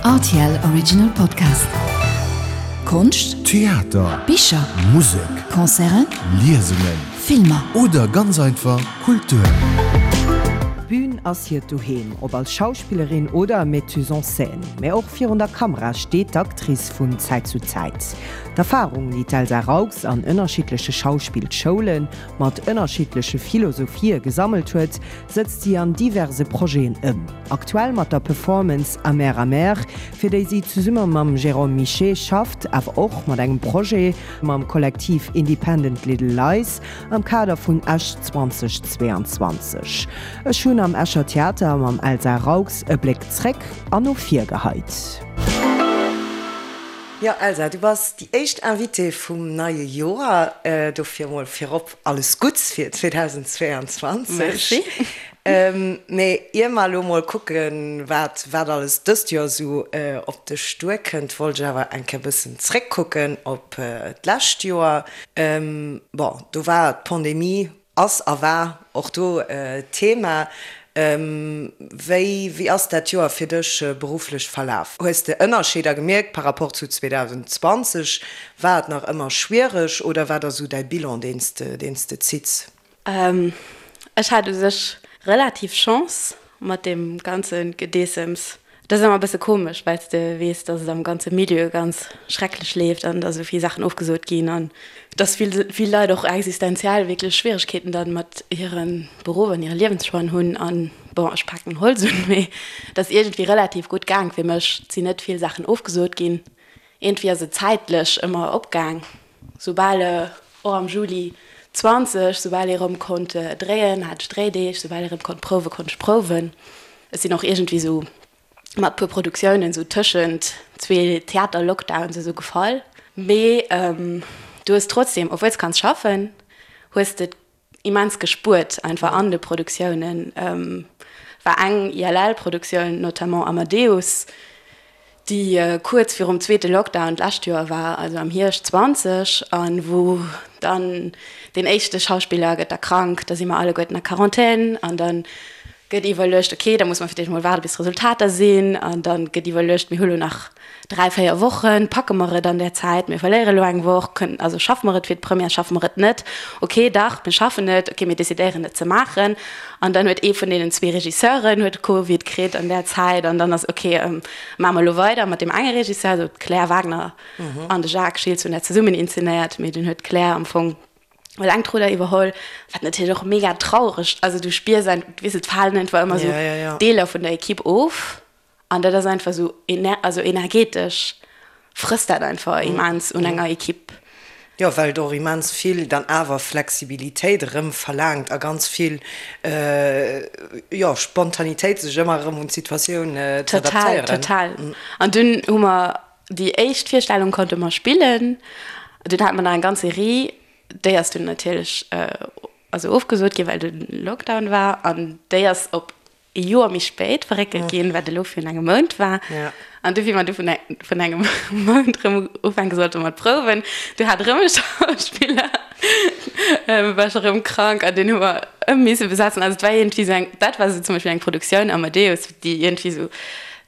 Rtl Original Podcast. Konscht, Theater, Bicher, Musek, Concerten, Liesungen, Filmer. Oder ganz einfach Kultur. D'Bün ass hiert Doheem, ob als Schauspillerin oder Metteuse en scène. Mä och virun der Kamera steet d'Actrice vun Zäit zu Zäit. D'Erfarung, déi d'Elsa Raux an ënnerschiddleche Schauspillschoulen mat ënnerschiddleche Philosophië gesammelt huet, sëtzt si an diverse Projeten ëm. Aktuell mat der Performance Amer Amer, fir déi si zesumme mam Jérôme Michet schafft, awer och mat engem Projet mam Kollektiv Independent Little Lies am Kader vun Esch 2022. Ech hunn am Escher Theater mam Elsa Raux e Bléck zréck an no vir geheit. Jo Elsa, du bass déi éischt Invitée vum neie Joer, dofir mol virop alles Gutts fir 2022. Merci. Mee ier mer elo mol kucken, wat wat alles dëst Joer esou op dech duerkënnt, wollt ech awer eng Kéier e bëssen zréckkucken op d'lescht Joer. Bon, do war d'Pandemie, ass a war och do Thema. Wéi wéi ass dat Joer fir dech berufflech verlaf? Hues de Ënnerscheeder gemierkt par rapport zu 2020? War et nach ëmmer schwiereg oder wat ass esou däi Bilan, deen s de deen s de zitts? Ech hat u sech relativ Chance mat deem ganze Gedeessems. Dat ass ëmmer e bësse komesch, well s de weess, datt et am ganze Milieu ganz schrecklech leeft an datt esou vill Saachen ofgesot ginn an datt vill, vill Leit och existenziell wierklech Schwieregkeeten dann mat hire Beruff an hire Liewenschoixen hunn. An bon, ech paken Holz un, mee et ass iergendwéi relativ gutt gaang fir mech. Et sinn net vill Saachen ofgesot ginn. Iergendwéi ass et zäitlech ëmmer opgaang. Soubal och am Juli 20, soubal ee rëm konnt dréien, hat ech Dréideeg, soubal ee rëm konnt prouwen, konnt ech prouwen. Ech sinn och iergendwéi esou mat puer Produktiounen esou tëschent zwee Theater-Lockdowns esou gefall. Mee du hues trotzdem, obwuel s kanns schaffen, hues de immens gespuert einfach an de Produktiounen. War eng ILL-Produktioun, notamment Amadeus, déi kuerz virum zweete Lockdown d'lescht Joer war, also am Hierscht 20, a wou dann deen éischte Schauspiller gëtt da krank, da si mer alleguerten a Quarantän an da gëtt iwwerluecht, okay, da muss mer fir d'éischt emol waarde bis d'Resultater sinn an da gëtt iwwerluecht, mir hu lo nach 3, 4 Wochen, packe mer et an där Zäit, mir verléiere lo eng Woch, kënnen, also schaffe mer et fir d'Première, schaffe mer et net, okay, dach, mir schaffen et, okay, mir decidéieren et ze maachen. An dann huet ee vun deenen zwee Regisseuren huet Covid kritt an där Zäit an dann ass, okay, maache mer elo weider mat deem enge Regisseur, also d'Claire Wagner an de Jacques Schiltz hunn dat zesummen inzenéiert, mee dunn huet d'Claire am Fong eleng d'Rudder iwwerholl, wat natierlech och mega traureg, also du spiers einfach, weess de, et falen einfach ëmmer esou Deeler vun der Equipe of. An dat ass einfach esou, also energetesch frësst dat einfach immens un enger Equipe. Jo, well et och immens vill dann awer Flexibilitéit erëm verlaangt a ganz vill, jo, Spontanitéit, sech ëmmer erëm un d'Situatioun ze adaptéieren. Total, total. An dunn hu mer déi éischt Virstellung konnte mer spillen. Dunn hate mer nach eng ganz Serie, déi ass dunn natierlech also ofgesot ginn, well de Lockdown war. An déi ass op e Joer méi spéit verréckelt ginn, wat elo virun engem Mount war. An du, wéi mer du vun vun engem Mount erëm ufänke sollte mat prouwen, du hat erëm e Schauspiller, war scho erëm krank an deen hu mer ëm misse besetzen. Also et war iergendwéi esou eng, dat war esou zum Beispill eng Produktioun Amadeus, déi iergendwéi esou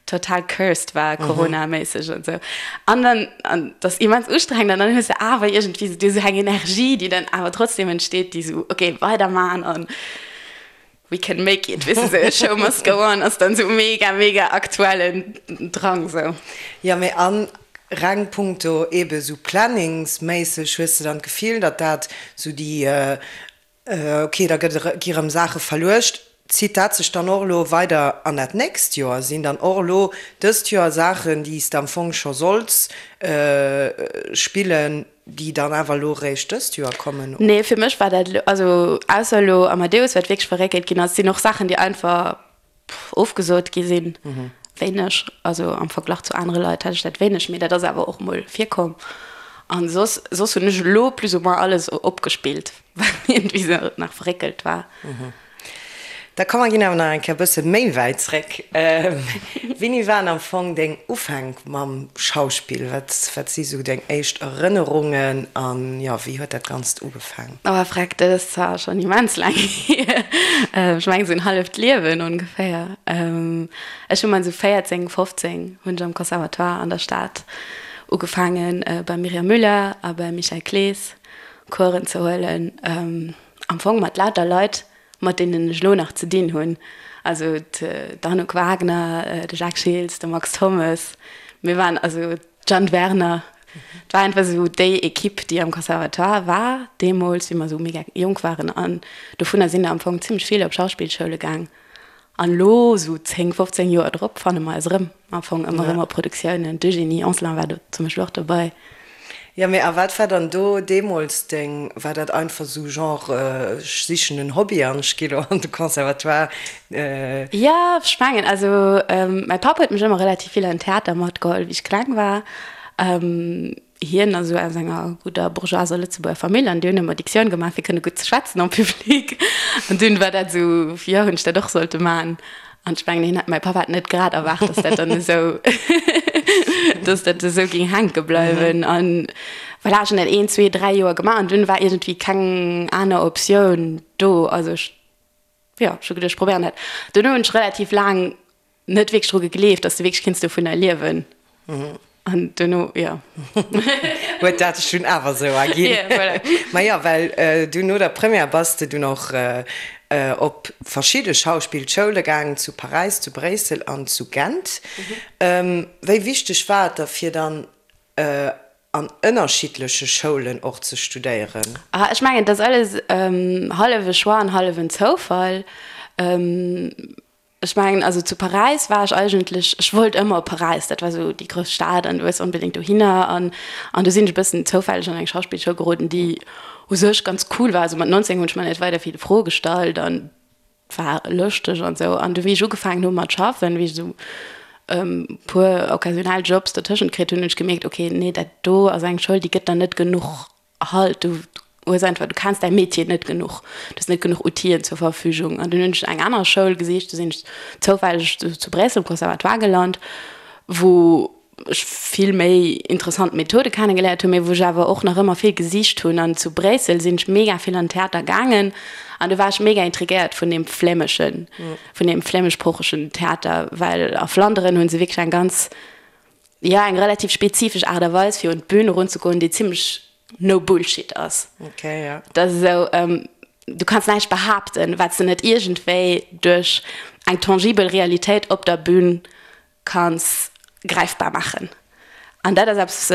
total cursed war, coronaméisseg an esou. An dann, an dat ass immens ustrengend an dann hues de awer iergendwéi esou esou eng Energie, déi dann awer trotzdem entsteet, déi esou, okay, weiderman an. We can make it, weess de, sou Show must go on ass dann sou mega, mega aktuellen Drang sou. Jo, mee an reng punkto ebe sou planningsméisseg, hues de dann d'Gefill, datt dat sou déi, ok, da gëtt, gi rëm Saache verluecht, zitt dat sech dann och elo weider an dat nächst Joer? Sinn dann och elo dëst Joer Saachen, déi s de am Fong scho solls spillen, Déi dann awer elo eréischt dëst Joer kommen? Nee, fir mech war dat elo, also ausser elo Amadeus, wat wierklech verréckelt ginn ass, sinn och Saachen, déi einfach ofgesot gi sinn. Wéineg, also am Verglach zu anere Leit hat ech dat wéineg, mee dat ass awer och mol virkomm. An soss, soss hunn ech elo plus ou moins alles opgespillt, wat iergendwéi sou nach verréckelt war. Da komm mer ginn awer nach eng Kéier e bësse méi wäit zréck. Wéini waren am Fong deng Ufänk mam Schauspill? Wat, wat si sou deng éischt Erënnerungen an jo, wéi huet dat Ganzt ugefaang? Oh freck, dat ass zwar schonn immens laang hier. Ech mengen sou en halleft Liewen ongeféier. Ech hu mat sou 14, 15 hunn ech am Conservatoire an der Stad ugefaangen beim Myriam Müller a beim Michel Clees Coursen ze huelen. Am Fong mat lauter Leit, mat deenen ech elo nach ze dinn hunn, also d'Anouk Wagner, de Jacques Schiltz, de Max Thommes, mir waren, also d'Jeanne Werner, et war einfach esou déi Equipe, déi am Conservatoire war deemools, wéi mer esou mega jonk waren an dovunner sinn der am Fong zimmlech vill op Schauspillschoule gaang. An elo, esou 10, 15 Joer drop, fanne mer eis erëm am Fong ëmmer erëm op Produktiounen. D'Eugénie Anselin war do zum Beispill och dobei. Jo, mee a wat war dann do deemools deng, war dat einfach esou genre ech sichen en Hobby an ech gi lo an de Conservatoire? Jo, ech mengen, also mäi Papp huet mech ëmmer relativ vill an den Theater matgeholl, wéi ech kleng war. Hien ass esou aus enger gudder bourgeoiser Lëtzebuerger Famill an déi hunn ëmmer Dictioun gemaach fir kënne gutt ze schwätzen en public. An dunn war dat esou, jo, hunn ech dat och sollte maachen. An ech mengen, hien hat, mäi Papp hat net grad erwaart, dass dat dann esou, dass dat esou géing hänke bleiwen. An voilà, ech hunn dat een, zwee, dräi Joer gemaach an dunn war iergendwéi keng aner Optioun do. Also ech, jo, ech hu geduecht, ech probéieren dat. Duerno hunn ech relativ laang net wierklech dru gegleeft, dass de wierklech kinns dovunner liewen. An duerno, jo. Huet dat sech dunn awer esou erginn. Jo, voilà. Ma jo, well du no der Première bass de dunn och op verschidde Schauspillschoule gaangen, zu Paräis, zu Bréissel an zu Gent. Wéi wichteg war et der fir dann an ënnerschiddleche Schoulen och ze studéieren? Ah, ech mengen, et ass alles hallef e Choix an hallef en Zoufall. Ech mengen, also zu Paräis war ech eigentlech, ech wollt ëmmer op Paräis, dat war esou déi grouss Stad an du wëlls onbedéngt dohinner an an du sinn ech e bëssen zoufälleg an eng Schauspillschoul geroden, déi u sech ganz cool war. Also mat 19 hunn ech mer net weider vill Froe gestallt an war lëschteg an esou. An du wéi ech ugefaangen hu mat schaffen, wéi ech esou e puer occasionell Jobs dertëschent kritt hunn, hunn ech gemierkt, okay, nee, dat do ass eng Schoul, déi gëtt der net genuch Halt, du hues einfach, du kenns däi Metier net genuch, du hues net genuch Outiller zur Verfügung. An dunn hunn ech eng aner Schoul gesicht, du sinn ech zoufälleg zu Bréissel um Conservatoire gelant, wou ech vill méi interessant Methode kennegeléiert hunn, mee wou ech awer och nach ëmmer vill gesicht hunn. An zu Bréissel sinn ech mega vill an den Theater gaangen an du war ech mega intrigéiert vun deem flämeschen, vun deem flämeschsproochegen Theater, well a Flanderen hu se wierklech eng ganz jo, eng relativ spezifesch Aart a Weis, fir un d'Bün erunzegoen, déi zimmlech no bullshit ass. Okay, ja. Dat ass esou, du kanns näischt behaapten, wat s de net iergendwéi duerch eng tangibel Realitéit op der Bün kanns gräifbar maachen. An dat ass eppes,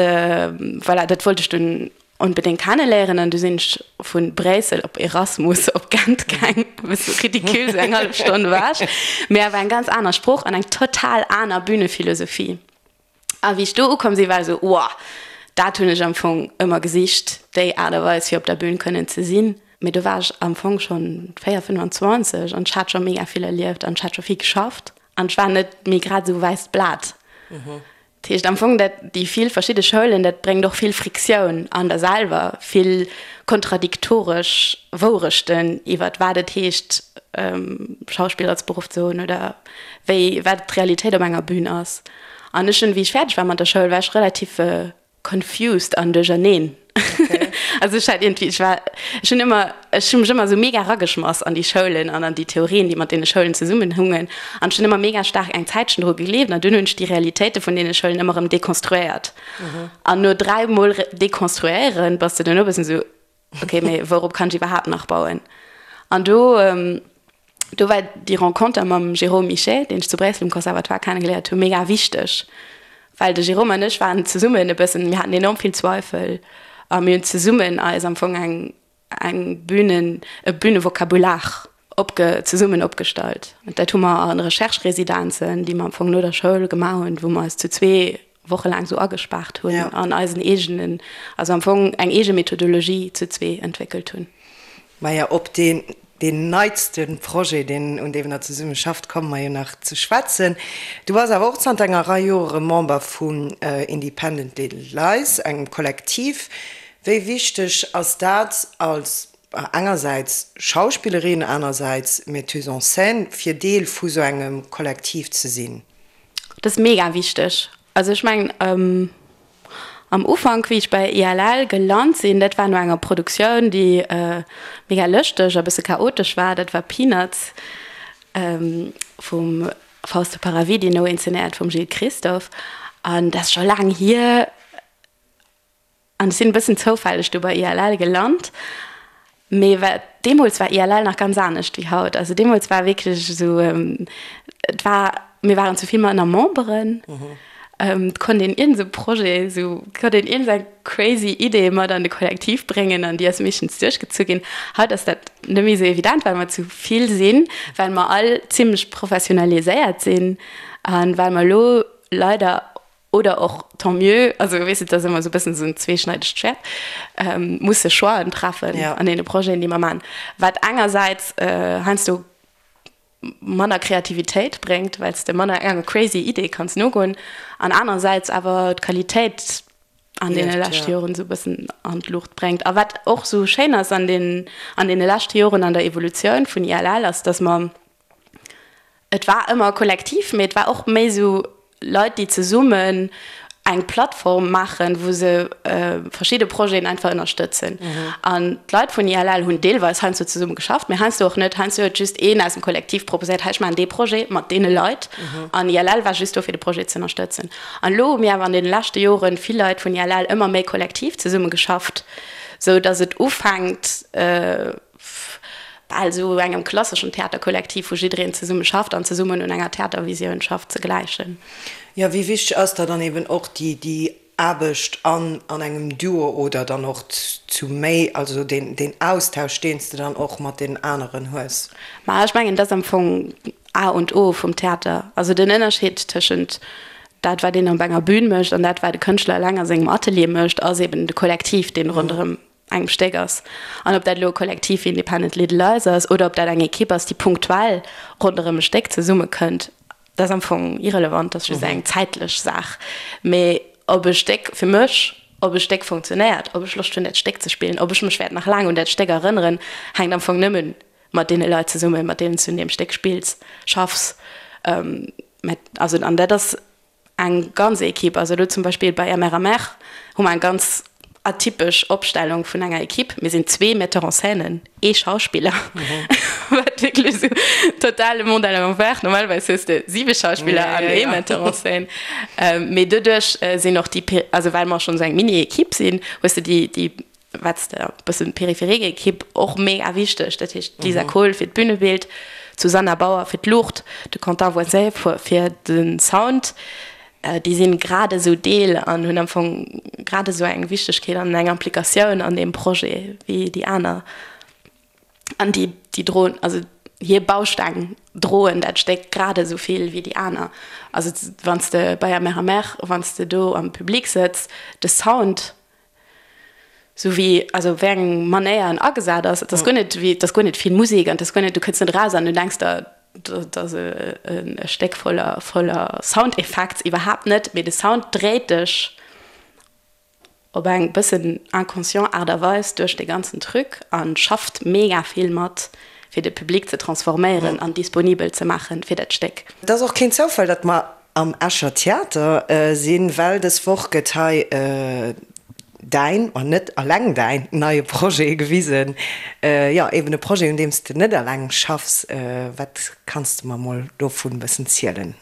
voilà, dat wollt ech dunn onbedéngt kenneléieren. An du sinn ech vu Bréissel op Erasmus op Gent gaang, e bësse ridicule, sou eng hallef Stonn ewech, mee awer eng ganz aner Sprooch an eng total aner Bühnephilosophie. A wéi ech do ukomm sinn, war ech esou, Wow, dat hunn ech am Fong ëmmer gesicht, déi Aart a Weis, fir op der Bühn kënnen ze sinn. Mee do war ech am Fong schonn 4, 25 an ech hat scho mega vill erlieft an ech hat scho vill geschafft an ech war net méi grad esou wäisst Blat. Dat heescht am Fong, dat déi vill verschidde Schoulen, dat bréngt och vill Friktioun an der selwer, vill kontradiktoresch Wourechten iwwert wat et heescht, Schauspill als Beruff ze hunn oder wéi wat d'Realitéit op enger Bühn ass. An ech hunn, wéi ech fäerdeg war mat der Schoul, war ech relativ confused an duercherneen. Also ech hat iergendwéi, ech war, ech hunn ëmmer, ech hu mech ëmmer esou mega erageschmass an déi Schoulen an an déi Theorien, déi mat deene Schoulen zesummenhungen. An ech hunn ëmmer mega staark eng Zäitchen dru gegleeft an dunn hunn ech déi Realitéite vun deene Schoulen ëmmer erëm dekonstruéiert. An no dräimol dekonstruéieren, bass de duerno e bëssen esou, ok, mee wourop kann ech iwwerhaapt nach bauen? An do, do war déi Renconter mam Jérôme Michet, deen ech zu Bréissel um Conservatoire kennegeléiert hunn, mega wichteg, well de Jérôme an ech waren zesummen e bëssen, mir haten enorm vill Zweifel a mir hunn zesummen eis am Fong eng, eng Bühnen, e Bühnevokabular opge, zesummen opgestallt. An dat hu mer an Recherche-Residenzen, déi mer am Fong no der Schoul gemaach hunn, wou mer eis zu zwee wochelaang sou agespaart hunn an eisen eegenen, also am Fong eng eege Methodologie zu zwee entwéckelt hunn. Maja, op deen, deen neitste Projet, deen, un deem Der zesumme schafft, komme mer jo nach ze schwätzen. Du bass awer och zanter enger Rei Jore Member vun Independent Little Lies, engem Kollektiv. Wéi wichteg ass dat als. Engersäits Schauspillerin, anersäits Metteuse en scène, fir Deel vu sou engem Kollektiv ze sinn? Dat ass mega wichteg. Also ech mengen, am Ufank, wéi ech bei ILL gelant sinn, dat war no enger Produktioun, déi mega lëschteg a bësse chaotesch war, dat war Peanuts vum Fausto Paravidino, inzenéiert vum Gilles Christophe. An dat ass scho laang hier. An ech sinn e bëssen zoufälleg do bei ILL gelant. Mee wat, deemools war ILL nach ganz anescht wéi haut. Also deemools war wierklech esou, et war, mir waren zu vill manner Memberen. Et konnt een iergend esou Projet, esou konnt een iergend eng crazy Idee mat an de Kollektiv bréngen an déi ass meeschtens duerchgezu ginn. Haut ass dat net méi esou evident, well mer zu vill sinn, well mer all zimlech professionaliséiert sinn a well mer elo leider oder och tant mieux, also weess de, et ass ëmmer esou e bëssen esou en zweeschneidegt Schwäert, musse Choixen treffen an deene Projeten, déi mer maachen, wat engersäits heiansdo manner Kreativitéit bréngt, well s de manner enger crazy Idee kanns nogoen, an anerersäits awer d'Qualitéit an deene leschte Joren esou e bëssen an d'Luucht bréngt. A wat och esou schéin ass an deenen, an deene leschte Joren an der Evolutioun vun ILL, ass, datt mer, Et war ëmmer kollektiv, mee et war och méi esou Leit, déi zesummen eng Plattform maachen, wou se verschidde Projeten einfach ënnerstëtzen. An d'Leit vun ILL hunn deelweis heiansdo zesumme geschafft, mee heiansdo och net. Heiansdo huet just een aus dem Kollektiv proposéiert, hei ech maachen dee Projet mat deene Leit. An ILL war just do fir de Projet ze ënnerstëtzen. An elo hu mir awer an deene leschte Jore vill Leit vun ILL ëmmer méi kollektiv zesumme geschafft, sou datt et ufänkt, bal esou engem klasseschen Theaterkollektiv, wou jiddereen zesumme schafft an zesummen un enger Theatervisioun schafft, ze gläichen. Jo, wéi wichteg ass da dann eben och déi, déi Aarbecht an an engem Duo oder dann och zu méi, also deen, deen Austausch, deen s de dann och mat deenen aneren hues? Ma ech mengen, dat ass am Fong A und O vum Theater. Also den Ënnerscheed tëschent dat, wat een op enger Bühn mécht an dat, wat e Kënschtler eleng a sengem Atelier mécht, ass eben de Kollektiv, deen ronderëm engem Stéck ass. An ob dat elo e Kollektiv wéi Independent Little Lies ass oder ob dat eng Ekipp ass, déi punktuell ronderëm e Stéck zesummekënnt, dat ass am Fong irrelevant, dat ass just eng zäitlech Saach. Mee ob e Stéck fir mech, ob e Stéck funktionéiert, ob ech Loscht hunn, dat Stéck ze spillen, ob ech mech wäert nach laang un dat Stéck erënneren, hänkt am Fong nëmme mat deene Leit zesummen, mat deenen s du un deem Stéck spills, schaffs. Also an dat ass Eng ganz Equipe, also elo zum Beispill bei MRMR hu mer eng ganz atypesch Opstellung vun enger Equipe. Mir sinn zwee Metteur-en-scènen, ee Schauspiller, wat wierklech esou total le monde à l'envers. Normalerweis hues de siwe Schauspiller an ee Metteur-en-scène. Mee doduerch sinn och déi, also well mer schonn esou eng Mini-Equipe sinn, hues de déi, déi wat s de e bëssen périphérique Equipe och mega wichteg, dat heescht d'Lisa Kohl fir d'Bünebild, d'Susanna Bauer fir d'Luucht, de Quentin Voisin fir de Sound, déi sinn grad esou Deel an hunn am Fong grad esou eng Wichtegkeet an eng Implikatioun an deem Projet wéi déi aner. An déi, déi droen, also hir Bausteng droen dat Stéck grad esou vill wéi déi aner. Also wann s de bei Amer Amer, wann s de do am Public sëtz, de Sound, Sou wéi, also wéi eng Manéier en agesat ass, et ass guer net wéi, et ass guer net vill Musek an et ass guer net, du kënns net eraus an du denks der, dat ass e Stéck voller, voller Sound Effects, iwwerhaapt net, mee de Sound dréit dech op eng bëssen inconscient Aart a Weis duerch dee ganzen Truc a schafft mega vill mat, fir de Public ze transforméieren an disponibel ze maachen fir dat Stéck. Et ass och keen Zoufall, datt mer am Escher Theater sinn, well dës Woch gëtt hei däin, ma net alleng däin, neie Projet gewisen. Jo, eben e Projet, un deem s de net alleng schaffs. Wat kanns de mer mol dovun e bëssen zielen?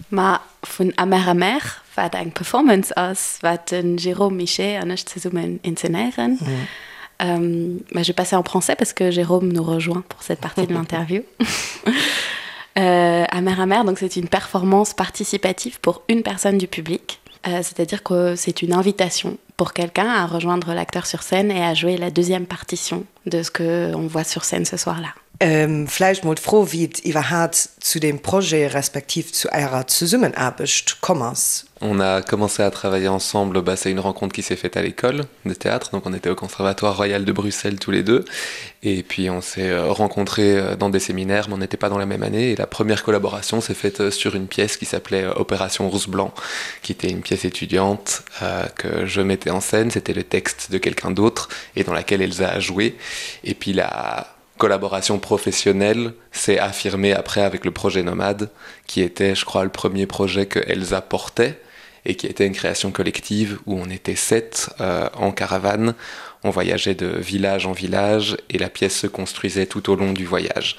Ma vun Amer Amer, wat eng Performance ass, wat de Jérôme Michet an ech zesummen inzenéieren. Mais je vais passer en français parce que Jérôme nous rejoint pour cette partie de l'interview. Euh, Amer Amer, donc c'est une performance participative pour une personne du public. Euh, C'est-à-dire que c'est une invitation pour quelqu'un à rejoindre l'acteur sur scène et à jouer la deuxième partition de ce qu'on voit sur scène ce soir-là. Vläicht mol d'Fro, wéi et iwwerhaat zu deem Projet respektiv zu Ärer Zesummenaarbecht komm ass. On a commencé à travailler ensemble, bah, c'est une rencontre qui s'est faite à l'école de théâtre, donc on était au Conservatoire royal de Bruxelles tous les deux et puis on s'est euh, rencontrés euh, dans des séminaires, mais on n'était pas dans la même année et la première collaboration s'est faite euh, sur une pièce qui s'appelait Opération Rousse Blanc, qui était une pièce étudiante euh, que je mettais en scène, c'était le texte de quelqu'un d'autre et dans laquelle Elsa a joué et puis la collaboration professionnelle s'est affirmée après avec le projet Nomade, qui était, je crois, le premier projet que Elsa portait et qui était une création collective où on était sept euh, en caravane, on voyageait de village en village et la pièce se construisait tout au long du voyage.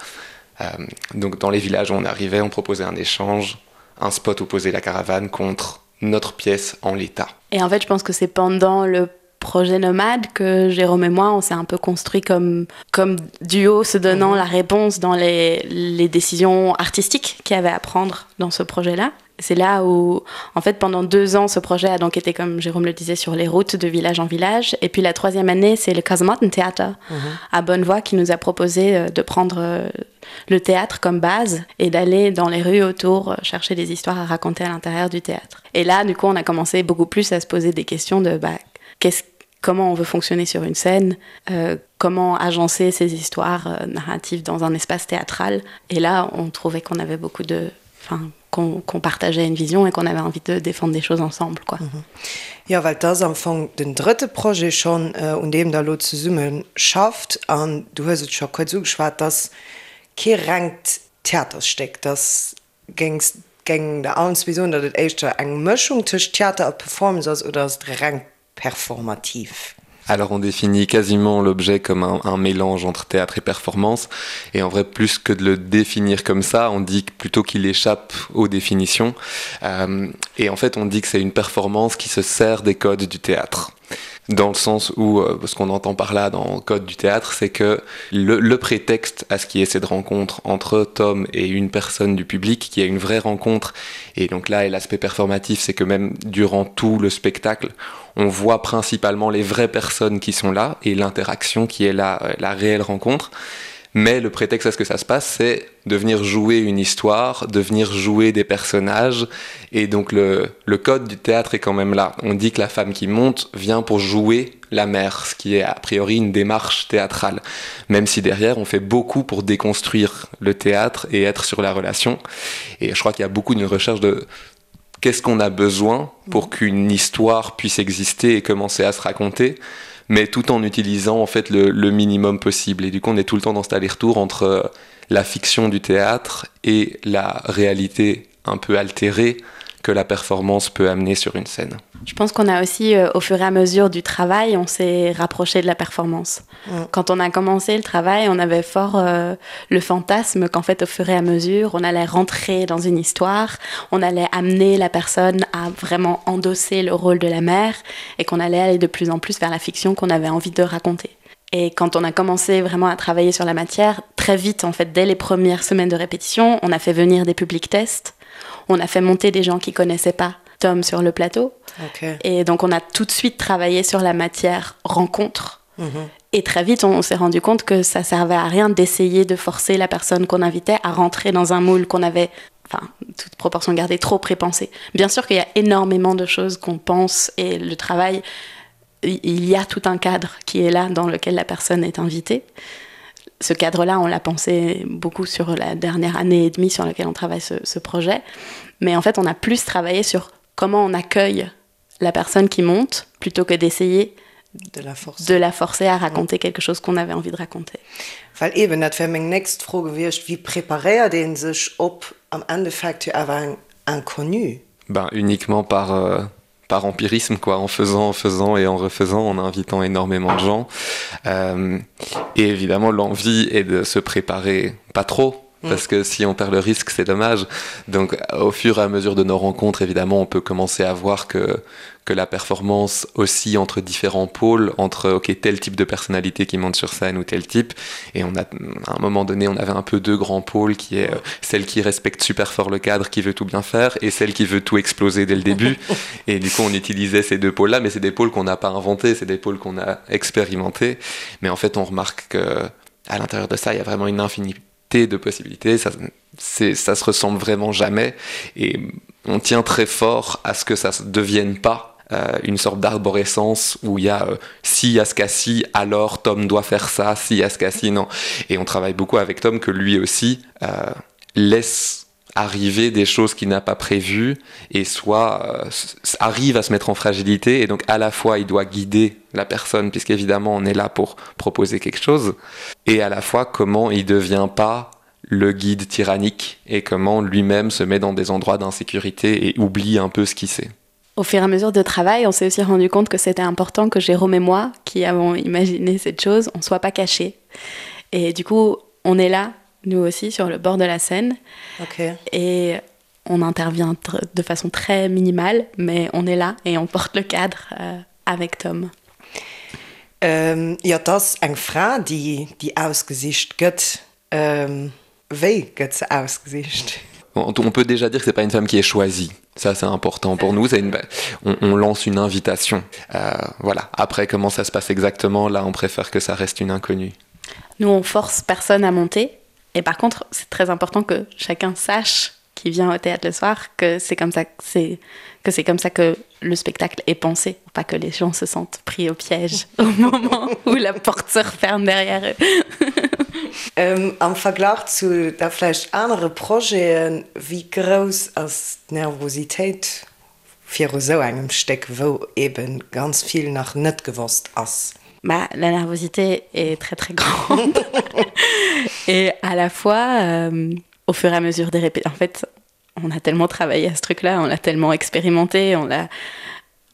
Euh, donc dans les villages où on arrivait, on proposait un échange, un spot où poser la caravane contre notre pièce en l'état. Et en fait, je pense que c'est pendant le projet nomade que Jérôme et moi on s'est un peu construit comme comme duo se donnant mmh. la réponse dans les, les décisions artistiques qu'il y avait à prendre dans ce projet là c'est là où en fait pendant deux ans ce projet a donc été comme Jérôme le disait sur les routes de village en village et puis la troisième année c'est le Casematten théâtre mmh. à Bonnevoie qui nous a proposé euh, de prendre euh, le théâtre comme base et d'aller dans les rues autour euh, chercher des histoires à raconter à l'intérieur du théâtre et là du coup on a commencé beaucoup plus à se poser des questions de bah, qu'est-ce comment on veut fonctionner sur une scène, euh, comment agencer ces histoires euh, narratives dans un espace théâtral. Et là, on trouvait qu'on avait beaucoup de enfin, qu'on qu partageait une vision et qu'on avait envie de défendre des choses ensemble quoi. Mm -hmm. Jo, well et ass am Fong den drëtte Projet schonn, un deem Der elo zesumme schafft. An du hues et scho kuerz ugeschwat, et ass kee rengt Theatersstéck, et ass, géings, géing Der allen zwee soen, datt et éischter eng Mëschung tëscht Theater a Performance ass oder ass et reng performativ? Alors on définit quasiment l'objet comme un, un mélange entre théâtre et performance et en vrai plus que de le définir comme ça, on dit plutôt qu'il échappe aux définitions euh, et en fait on dit que c'est une performance qui se sert des codes du théâtre dans le sens où euh, ce qu'on entend par là dans le code du théâtre c'est que le, le prétexte à ce qui est cette rencontre entre Tom et une personne du public qui a une vraie rencontre et donc là et l'aspect performatif c'est que même durant tout le spectacle on voit principalement les vraies personnes qui sont là et l'interaction qui est là euh, la réelle rencontre mais le prétexte à ce que ça se passe c'est de venir jouer une histoire de venir jouer des personnages et donc le, le code du théâtre est quand même là on dit que la femme qui monte vient pour jouer la mer ce qui est a priori une démarche théâtrale même si derrière on fait beaucoup pour déconstruire le théâtre et être sur la relation et je crois qu'il y a beaucoup d'une recherche de qu'est-ce qu'on a besoin pour qu'une histoire puisse exister et commencer à se raconter mais tout en utilisant en fait le, le minimum possible et du coup on est tout le temps dans cet aller-retour entre euh, la fiction du théâtre et la réalité un peu altérée que la performance peut amener sur une scène. Je pense qu'on a aussi euh, au fur et à mesure du travail, on s'est rapproché de la performance. Mm. Quand on a commencé le travail, on avait fort euh, le fantasme qu'en fait au fur et à mesure, on allait rentrer dans une histoire, on allait amener la personne à vraiment endosser le rôle de la mère et qu'on allait aller de plus en plus vers la fiction qu'on avait envie de raconter. Et quand on a commencé vraiment à travailler sur la matière, très vite en fait dès les premières semaines de répétition, on a fait venir des publics tests, on a fait monter des gens qui connaissaient pas Tom sur le plateau. Okay. Et donc on a tout de suite travaillé sur la matière rencontre. Mm -hmm. Et très vite, on, on s'est rendu compte que ça servait à rien d'essayer de forcer la personne qu'on invitait à rentrer dans un moule qu'on avait enfin toute proportion gardée trop prépensé. Bien sûr qu'il y a énormément de choses qu'on pense et le travail il y a tout un cadre qui est là dans lequel la personne est invitée. Ce cadre-là, on l'a pensé beaucoup sur la dernière année et demie sur laquelle on travaille ce, ce projet. Mais en fait, on a plus travaillé sur comment on accueille la personne qui monte plutôt que d'essayer de la forcer, de la forcer à raconter quelque chose qu'on avait envie de raconter. Well eben, dat wär meng nächst Fro gewiescht, Wéi preparéiert ee sech op am Endeffekt jo awer eng Inconnue? Ben uniquement par euh, par empirisme quoi en faisant en faisant et en refaisant en invitant énormément de gens euh, et évidemment l'envie est de se préparer pas trop mm. parce que si on perd le risque c'est dommage donc au fur et à mesure de nos rencontres évidemment on peut commencer à voir que que la performance aussi entre différents pôles entre ok tel type de personnalité qui monte sur scène ou tel type et on a à un moment donné on avait un peu deux grands pôles qui est euh, celle qui respecte super fort le cadre qui veut tout bien faire et celle qui veut tout exploser dès le début et du coup on utilisait ces deux pôles là mais c'est des pôles qu'on n'a pas inventé c'est des pôles qu'on a expérimenté mais en fait on remarque que. À l'intérieur de ça, il y a vraiment une infinité de possibilités, ça, ça se ressemble vraiment jamais et on tient très fort à ce que ça ne devienne pas euh, une sorte d'arborescence où il y a euh, si à ce cas-ci, alors Tom doit faire ça, si à ce cas-ci, non. Et on travaille beaucoup avec Tom que lui aussi euh, laisse arriver des choses qu'il n'a pas prévues et soit euh, arrive à se mettre en fragilité et donc à la fois il doit guider la personne puisqu'évidemment on est là pour proposer quelque chose et à la fois comment il devient pas le guide tyrannique et comment lui-même se met dans des endroits d'insécurité et oublie un peu ce qu'il sait. Au fur et à mesure de travail, on s'est aussi rendu compte que c'était important que Jérôme et moi, qui avons imaginé cette chose, on soit pas cachés. Et du coup, on est là, nous aussi, sur le bord de la scène. Okay. Et on intervient de façon très minimale, mais on est là et on porte le cadre euh, avec Tom. Ähm, jo, et ass eng Fra, déi, déi ausgesicht gëtt. Ähm, wéi gëtt se ausgesicht? On peut déjà dire que c'est pas une femme qui est choisie. Ça c'est important pour nous, c'est une on, on lance une invitation. Euh, voilà. Après comment ça se passe exactement, là on préfère que ça reste une inconnue. Nous on force personne à monter et par contre c'est très important que chacun sache qui vient au théâtre le soir que c'est comme ça que c'est que c'est comme ça que le spectacle est pensé pour pas que les gens se sentent pris au piège au moment où la porte se referme derrière eux. Ähm, am Verglach zu da vläicht anere Projeten, wéi grouss ass d'Nervositéit viru sou engem Stéck, wou ebe ganz vill nach net gewosst ass? Bah, la nervosité est très très grande et à la fois euh, au fur et à mesure des répétitions en fait on a tellement travaillé à ce truc là on l'a tellement expérimenté on l'a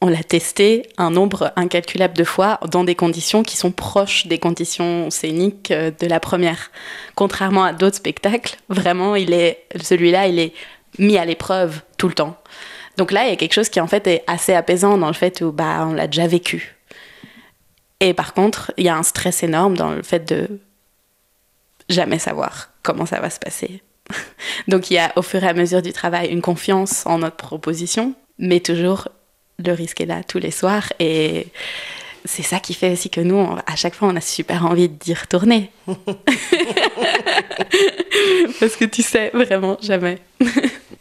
on l'a testé un nombre incalculable de fois dans des conditions qui sont proches des conditions scéniques euh, de la première contrairement à d'autres spectacles vraiment il est celui là il est mis à l'épreuve tout le temps donc là il y a quelque chose qui en fait est assez apaisant dans le fait où bah on l'a déjà vécu et par contre il y a un stress énorme dans le fait de jamais savoir comment ça va se passer donc il y a au fur et à mesure du travail une confiance en notre proposition mais toujours le risque est là tous les soirs et c'est ça qui fait aussi que nous on, à chaque fois on a super envie d'y retourner parce que tu sais vraiment jamais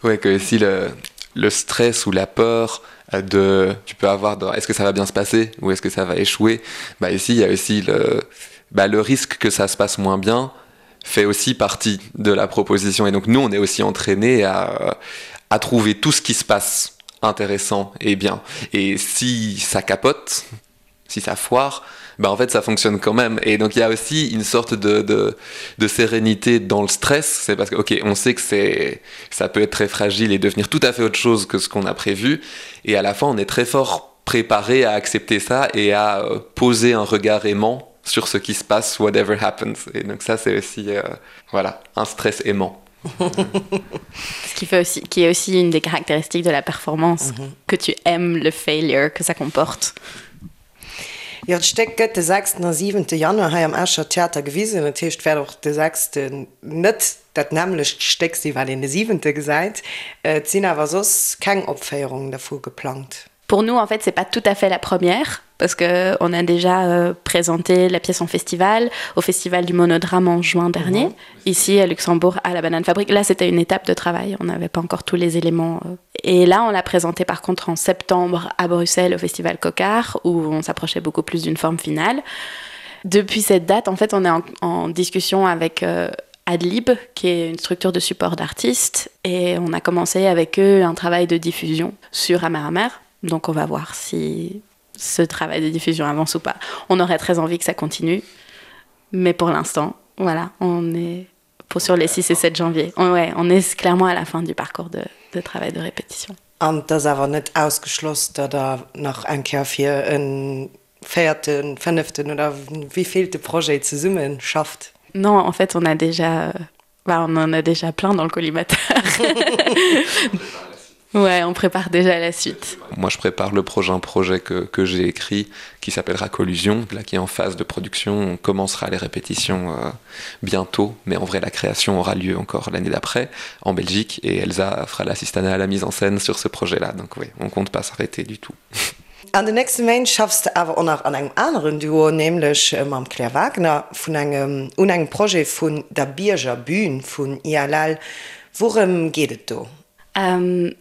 ouais que si le, le stress ou la peur euh, de tu peux avoir dans est-ce que ça va bien se passer ou est-ce que ça va échouer bah ici il y a aussi le bah, le risque que ça se passe moins bien fait aussi partie de la proposition et donc nous on est aussi entraîné à, à trouver tout ce qui se passe intéressant et bien et si ça capote si ça foire ben en fait ça fonctionne quand même et donc il y a aussi une sorte de, de, de sérénité dans le stress c'est parce que ok on sait que c'est ça peut être très fragile et devenir tout à fait autre chose que ce qu'on a prévu et à la fin on est très fort préparé à accepter ça et à euh, poser un regard aimant sur ce qui se passe whatever happens et donc ça c'est aussi euh, voilà un stress aimant ce qui fait aussi qui est aussi une des caractéristiques de la performance mm -hmm. que tu aimes le failure que ça comporte Jo, d'Stéck gëtt de sechsten a siwente Januar hei am Escher Theater gewisen. Dat heescht, et wäert och de sechsten net dat nämmlecht Stéck sinn, wat een de siwente gesäit. Et sinn awer soss keng Opféierungen dervu geplangt. Pour nous, en fait, c'est pas tout à fait la première parce que on a déjà euh, présenté la pièce en festival au festival du monodrame en juin dernier mmh. ici à Luxembourg à la banane fabrique là c'était une étape de travail on n'avait pas encore tous les éléments euh. et là on l'a présenté par contre en septembre à Bruxelles au festival Cocard où on s'approchait beaucoup plus d'une forme finale depuis cette date en fait on est en, en discussion avec euh, Adlib qui est une structure de support d'artistes et on a commencé avec eux un travail de diffusion sur Amer Amer donc on va voir si ce travail de diffusion avance ou pas. On aurait très envie que ça continue, mais pour l'instant, voilà, on est pour sur les 6 et 7 janvier. On, ouais, on est clairement à la fin du parcours de, de travail de répétition. An et ass awer net ausgeschloss, datt Der nach eng Kéier fir e véierten, fënneften oder wéivillte Projet zesumme schafft? Non, en fait, on a déjà, bah, on en a déjà plein dans le collimateur. Ouais, on prépare déjà la suite. Moi, je prépare le prochain projet que, que j'ai écrit qui s'appellera Collusion, là qui est en phase de production. On commencera les répétitions euh, bientôt, mais en vrai, la création aura lieu encore l'année d'après en Belgique et Elsa fera l'assistanat à la mise en scène sur ce projet-là. Donc oui, on compte pas s'arrêter du tout. An den nächste Méint schaffs de awer och nach an engem aneren Duo, nämlech mam Claire Wagner vun engem un engem Projet vun der Biergerbühn vun ILL. Wourëm geet et do?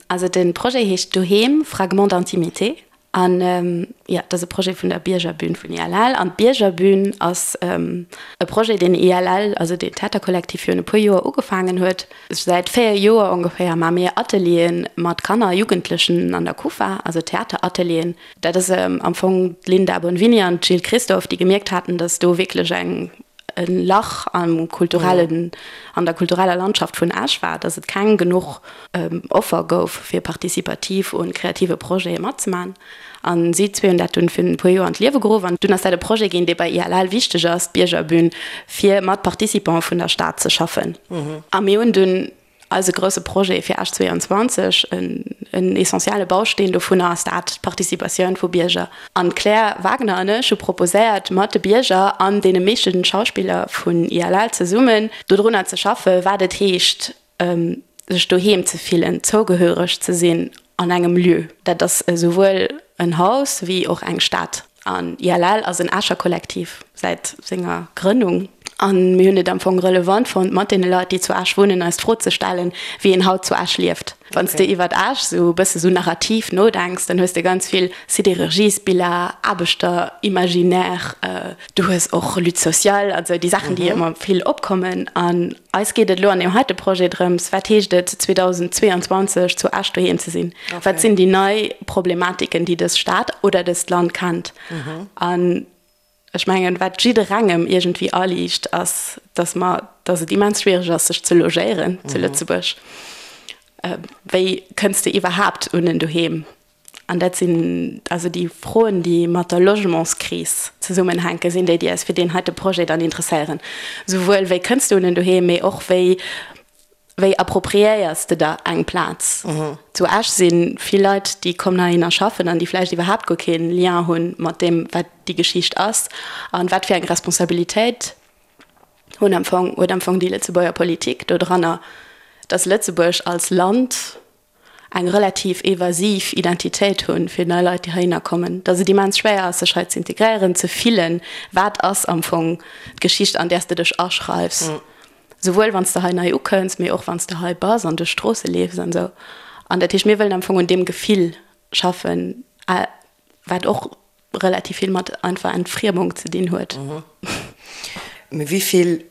Also de Projet heescht Doheem, Fragments d'intimité an jo, dat ass e Projet vun der Biergerbühn vun ILL. An d'Biergerbühn ass e Projet, deen ILL, also deen Theaterkollektiv virun e puer Joer ugefaangen huet. Säit 4 Joer ongeféier maache mir Atelieren mat Kanner a Jugendlechen an der Kufa, also Theateratelieren. Dat ass am Fong d'Linda Bonvini an d'Jill Christophe, déi gemierkt haten, datt do wierklech eng e Lach am kulturellen, an der kultureller Landschaft vun Esch war, datt et keng genuch Offer gouf, fir participativ un kreative Projete matzemaachen. An si zwee hunn dat dunn virun e puer Joer an d'Liewe geruff. An dunn ass dat e Projet ginn, dee bei ILL wichteg ass, d'Biergerbün, fir mat Participante vun der Stad ze schaffen. A mir hunn dunn eise grousse Projet fir Esch 22, en essentielle Bausteen dovunner ass dat, d'Participatioun vu Bierger. An d'Claire Wagner an ech hu proposéiert, mat de Bierger an deene meeschten Schauspiller vun ILL zesummen dodrunner ze schaffen, wat et heescht, sech doheem ze fillen, zougehöreg ze sinn an engem Lieu. Dat ass esouwuel en Haus wéi och eng Stad. An ILL ass en Escher Kollektiv säit senger Grënnung. A mir hunn et am Fong relevant fonnt, mat deene Leit, déi zu Esch wunnen, eis d'Fro ze stellen, wéi een haut zu Esch lieft. Wann s de iwwert Esch esou e bësse sou narrativ nodenks, dann hues de ganz vill Sidérurgiesbiller, Aarbechterimaginaire, du hues och Lutte sociale, also déi Saachen, déi ëmmer vill opkommen. An Eis geet et elo an deem heite Projet drëms, wat heescht et 2022 zu Esch doheem ze sinn? Wat sinn déi nei Problematiken, déi dës Stad oder dëst Land kennt? An ech mengen, wat jidderengem iergendwéi aliicht, ass, dass mer, dass et immens schwiereg ass, sech ze logéieren zu Lëtzebuerg. Wéi kënns de iwwerhaapt un en Doheem? An dat sinn also déi Froen, déi mat der Logementskris zesummenhänken, sinn déi, déi eis fir deen heite Projet dann interesséieren. Souwuel wéi kënns de un en Doheem, mee och wéi, wéi appropriéiers de der eng Plaz. Zu Esch si vill Leit, déi kommen heihinner schaffen an déi vläicht iwwerhaapt guer kee Lien hu mat deem, wat déi Geschicht ass an wat fir eng Responsabilitéit hunn am Fong, huet am Fong déi Lëtzebuerger Politik dodranner, dass Lëtzebuerg als Land eng relativ evasiv Identitéit hunn fir nei Leit, déi heihinner kommen, datt et immens schwéier ass, sech hei ze integréieren, ze fillen, wat ass am Fong d'Geschicht, an där s de dech aschreifs, souwuel wann s de hei nei ukënns, mee och wann s de hei bass an duerch d'Stroosse leefs an esou. An dat heescht, mir wëllen am Fong un deem Gefill schaffen, wat och relativ vill mat einfach Entfriemung ze dinn huet. Mee wéi vill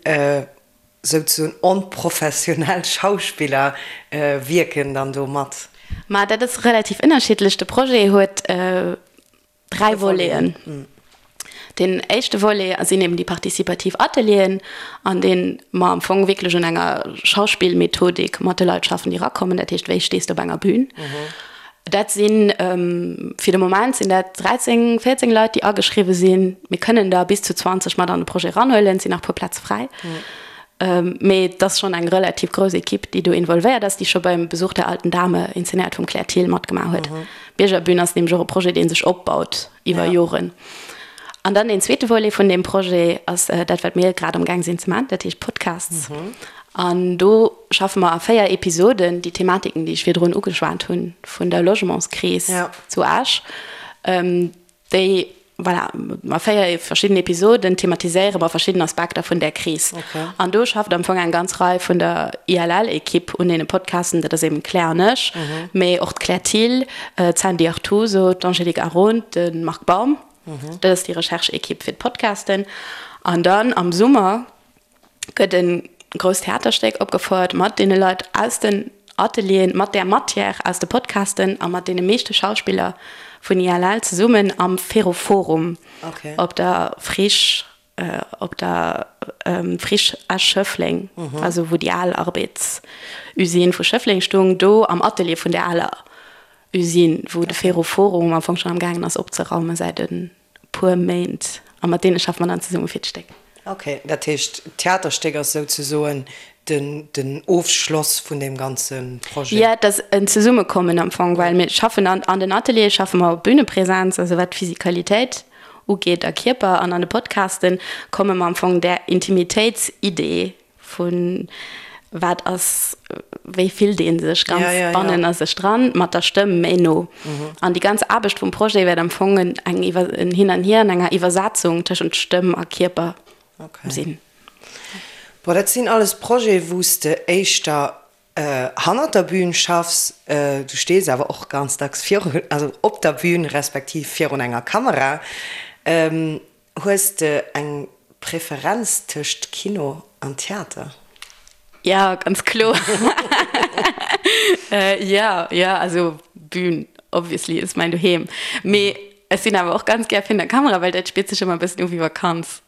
Souzesoen onprofessionell Schauspiller wierken dann do mat? Ma dat ass relativ ënnerschiddlech. De Projet huet 3 Voleten. Deen éischte Volet sinn eben déi participativ Atelieren, an deene mer am Fong wierklech un enger Schauspillmethodik mat de Leit schaffen, déi erakommen. Dat heescht, wéi stees de op enger Bühn? Dat sinn, fir de Moment sinn dat 13, 14 Leit, déi ageschriwwe sinn. Mir kënnen der bis zu 20 mat an de Projet eranhuelen, et sinn nach e puer Plaze fräi. Mee et ass schonn eng relativ grouss Ekipp, déi do involvéiert ass, déi scho beim Besuch der alten Dame, inzenéiert vum Claire Thill, matgemaach huet. D'Biergerbün ass nämlech och e Projet, dee sech opbaut iwwer Joren. An dann deen zweete Volet vun deem Projet ass dat, wat mir grad amgaang sinn ze maachen, dat heescht Podcasts. An do schaffe mer a 4 Episoden déi Thematiken, déi ech virdrun ugeschwat hunn, vun der Logementskris zu Esch, déi, voilà, a 4 verschidden Episoden thematiséiere mer verschidden Aspekter vun där Kris. An do schafft am Fong eng ganz Rei vun der ILL-Ekipp un deene Podcasten, dat ass eben d'Claire an ech, mee och d'Claire Thill, d'Sandy Artuso, d'Angélique Aron, de Marc Baum. Dat ass déi Recherche-Ekipp fir d'Podcasten. An dann am Summer gëtt e grousst Theaterstéck opgefouert mat deene Leit aus den Atelieren, mat där Matière aus de Podcasten a mat deene meeschte Schauspiller vun ILL zesummen am Ferroforum op der Friche, op der Friche Esch-Schëffleng, also wou déi al Arbeedsusine vu Schëffleng stung, do am Atelier vun där aler Usine, wou de Ferroforum am Fong schonn am gaangen ass opzeraumen säit e puer Méint. A mat deene schaffe mer dann zesumme fir d'Stéck. Ok, dat heescht d'Theaterstéck ass souzesoen den Ofschloss vun deem ganze Projet? Jo, et ass en Zesummekommen am Fong, well mir schaffen an den Ateliere schaffe mer op Bünepresenz, also wat d'Physikalitéit ugeet a Kierper, an an de Podcaste komme mer am Fong där Intimitéitsidee vu wat ass. wéi fillt ee sech ganz bannen a sech dran, mat der Stëmm méi no. An déi ganz Aarbecht vum Projet wäert am Fong eng en Hin an Hier an enger Iwwersetzung tëschent Stëmm a Kierper sinn. Bon, dat sinn alles Projete wou s de éischter hannert der Bühn schaffs. Du stees awer och ganz dacks virun, also op der Bühn respektiv virun enger Kamera. Hues de eng Preferenz tëscht Kino an Theater? Jo, ganz kloer. Jo, jo, also Bühn obviously ass mäin Doheem. Mee ech sinn awer och ganz gär virun der Kamera, well dat spiert sech ëmmer e bëssen u wéi Vakanz.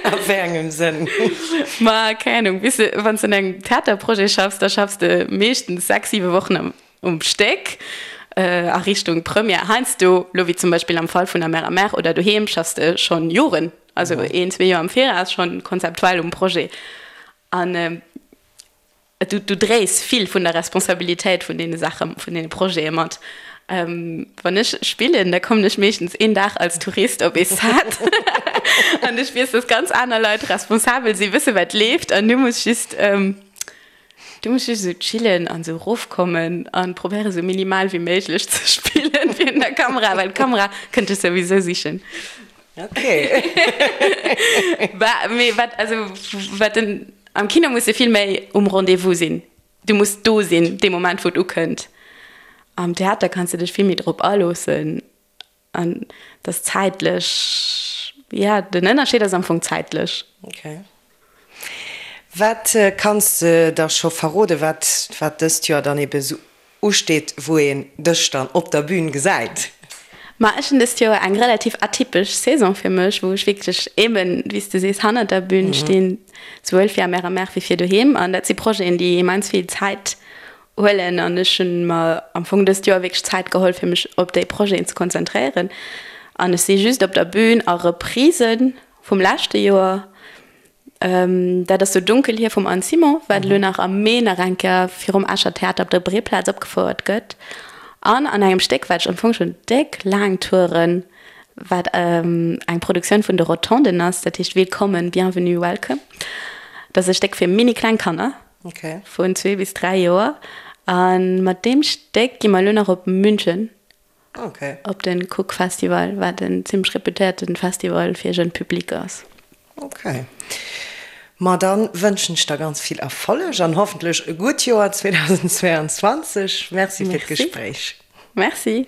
A wéi engem Sënn? Ma keng Ahnung, weess de, wann s de un engem Theaterprojet schaffs, da schaffs de meeschtens 6, 7 Wochen am um Stéck a Richtung Première. Heiansdo, lo wéi zum Beispill am Fall vun der Mère à Mère oder Doheem, schaffs de schonn Joren, also een, zwee Joer am Viraus schonn konzeptuell um Projet. An du, du dréis vill vun der Responsabilitéit vun deene Saache, vun deene Projete mat. Wann ech spillen, da kommen ech meeschtens een Dag als Tourist op ee Set an ech weess, dass ganz aner Leit responsabel sinn, wësse wat leeft an du muss just, Du muss just esou chillen an esou erofkommen an probéieren esou minimal wéi méiglech ze spillen virun der Kamera, well d'Kamera kënnt dech souwisou sichen. Ok. Bah, mee wat, also wat den, am Kino muss de vill méi um Rendez-vous sinn. Du muss do sinn dee Moment wou et ukënnt. Am Theater kanns de dech vill méi drop aloossen an dat ass zäitlech, ja den Ënnerscheed ass am Fong zäitlech. Ok. Wat kanns de da scho verrode wat wat dëst Joer dann ebe sou usteet, wou een dech dann op der Bühn gesäit? Ma ech hunn dëst Joer eng relativ atypesch Saison fir mech, wou ech wierklech eben, wéi s de sees, hannert der Bühn stinn, souwuel fir Amer Amer wéi fir Doheem. An dat si Projeten, déi immens vill Zäit huelen an ech hunn mer am Fong dëst Joer wierklech Zäit geholl fir mech op déi Projeten ze konzentréieren an ech si just op der Bühn a Reprisen vum leschte Joer. Dat ass So dunkel hier vum Anne Simon, wat elo nach am Mee nach eng Kéier virum Escher Theater op der Breeplaz opgefouert gëtt an an engem Stéck wat ech am Fong schonn déck laang touren, wat eng Produktioun vun de Rotonden ass, dat heescht Willkommen, Bienvenue, Welcome. Dat ass e Stéck fir mini kleng Kanner. Okay. Vun zwee bis dräi Joer. A mat deem Stéck gi mer elo nach op München. Okay. Op den Cook Festival, wat en zimmlech reputéierten Festival fir jeune Public ass. Okay. Ma dann wënschen ech der ganz vill Erfolleg an hoffentlech e gutt Joer 2022. Merci fir d'Gespréich. Merci.